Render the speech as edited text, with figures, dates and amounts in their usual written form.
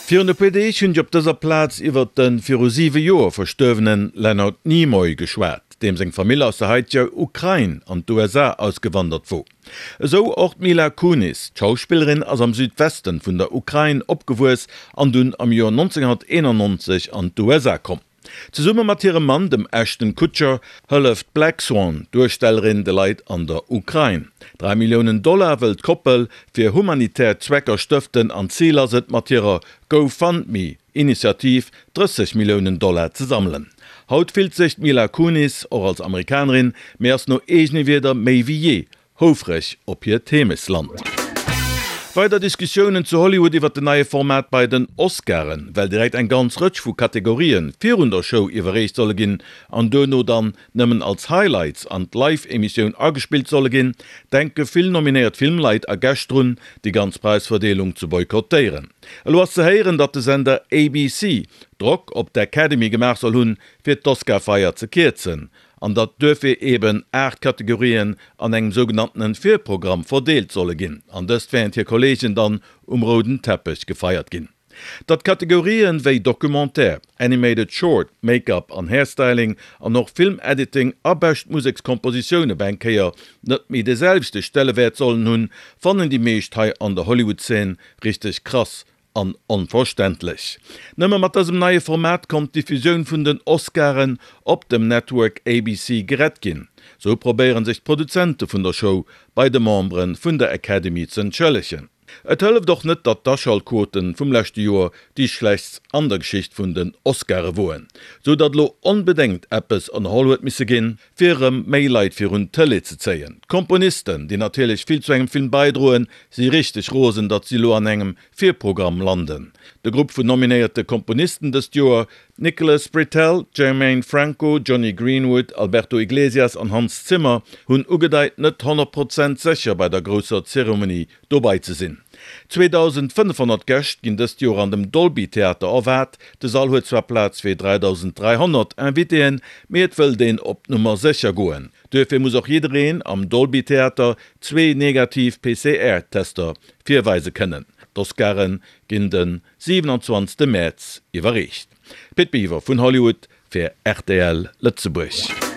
Virun e puer Deeg hunn ech op dëser Plaz iwwert de viru siwe Joer verstuerwene Leonard Nimoy geschwat, deem seng Famill aus der haiteger Ukrain an d'USA ausgewandert wor. Esou och d'Mila Kunis. D'Schauspillerin ass am Südwesten vun der Ukrain opgewuess an dunn am Joer 1991 an d'USA komm. Zesumme mat hirem Mann, dem Ashton Kutcher, hëlleft d'Black Swan Duerstellerin de Leit an der Ukrain. 3 Milliounen Dollar wëll d'Koppel fir humanitär Zwecker stëften an d'Zil ass et mat hirer GoFundMe Initiativ 30 Milliounen Dollar ze sammelen. Haut fillt sech d'Mila Kunis och als Amerikanerin, mee ass no eegene Wierder méi wéi jee Houfreg op hiert Heemechtsland. Weider Diskussiounen zu Hollywood iwwer den neie Format bei den Oscaren, well direkt eng ganz Rëtsch vu Kategorien virun der Show iwwerreecht solle ginn an duerno dann nëmmen als Highlights an d'Live-Emissioun agespillt solle ginn, denke vill nominéiert Filmleit a Gäscht drun, déi ganz Präisverdeelung ze boykottéieren. Elo ass ze héieren, datt de Sender ABC Drock op d'Academy gemaach soll hunn, fir d'Oscar-Feier ze kierzen. an datt duerfir eeben 8 Kategorien an engem sougenanntenen Virprogramm verdeelt solle ginn, an dëst während hir Kollegen dann um rouden Teppech gefeiert ginn. Datt Kategorien wéi Documentaire, Animated Short, Make-up an Hairstyling an och Film Editing a bescht Musekskompositioun op eng Kéier net méi de selwechte Stellewäert sollen hunn, fannen déi meescht hei an der Hollywood-Szene richteg krass An onverständlech. Nëmme mat dësem neie Format konnt d'Diffusioun vun den Oscaren op dem Network ABC gerett ginn. Sou probéiere sech d'Produzente vun der Show bei de Membere vun der Academy z'entschëllegen. Et hëlleft och net, datt d'Aschaltquote vum leschte Joer déi schlechtst an der Geschicht vun den Oscare woen, sou datt elo onbedéngt eppes ënnerholl huet misse ginn, fir erëm méi Leit virun d'Tëlee ze zéien. D'Komponisten, déi natierlech vill zu engem Film baidroen, si richteg rosen, datt si elo an engem Virprogramm landen. De Grupp vun nominéierte Komponisten dëst Joer, Nicholas Britell, Germaine Franco, Jonny Greenwood, Alberto Iglesias an Hans Zimmer, hunn ugedeit, net 100 Prozent sécher bei der grousser Zeremonie dobai ze sinn. 2.500 Gäscht ginn dëst Joer an dem Dolby Theater erwaart. De Sall huet zwar Plaz fir 3.300 Invitéen, mee et wëllt een op Nummer sécher goen. Duerfir muss och jiddereen am Dolby Theater zwee negativ PCR-Tester virweise kënnen. D'Oscaren ginn de 27 Mäerz iwwerreecht. Pit Biwer vun Hollywood fir rtl Lëtzebuerg.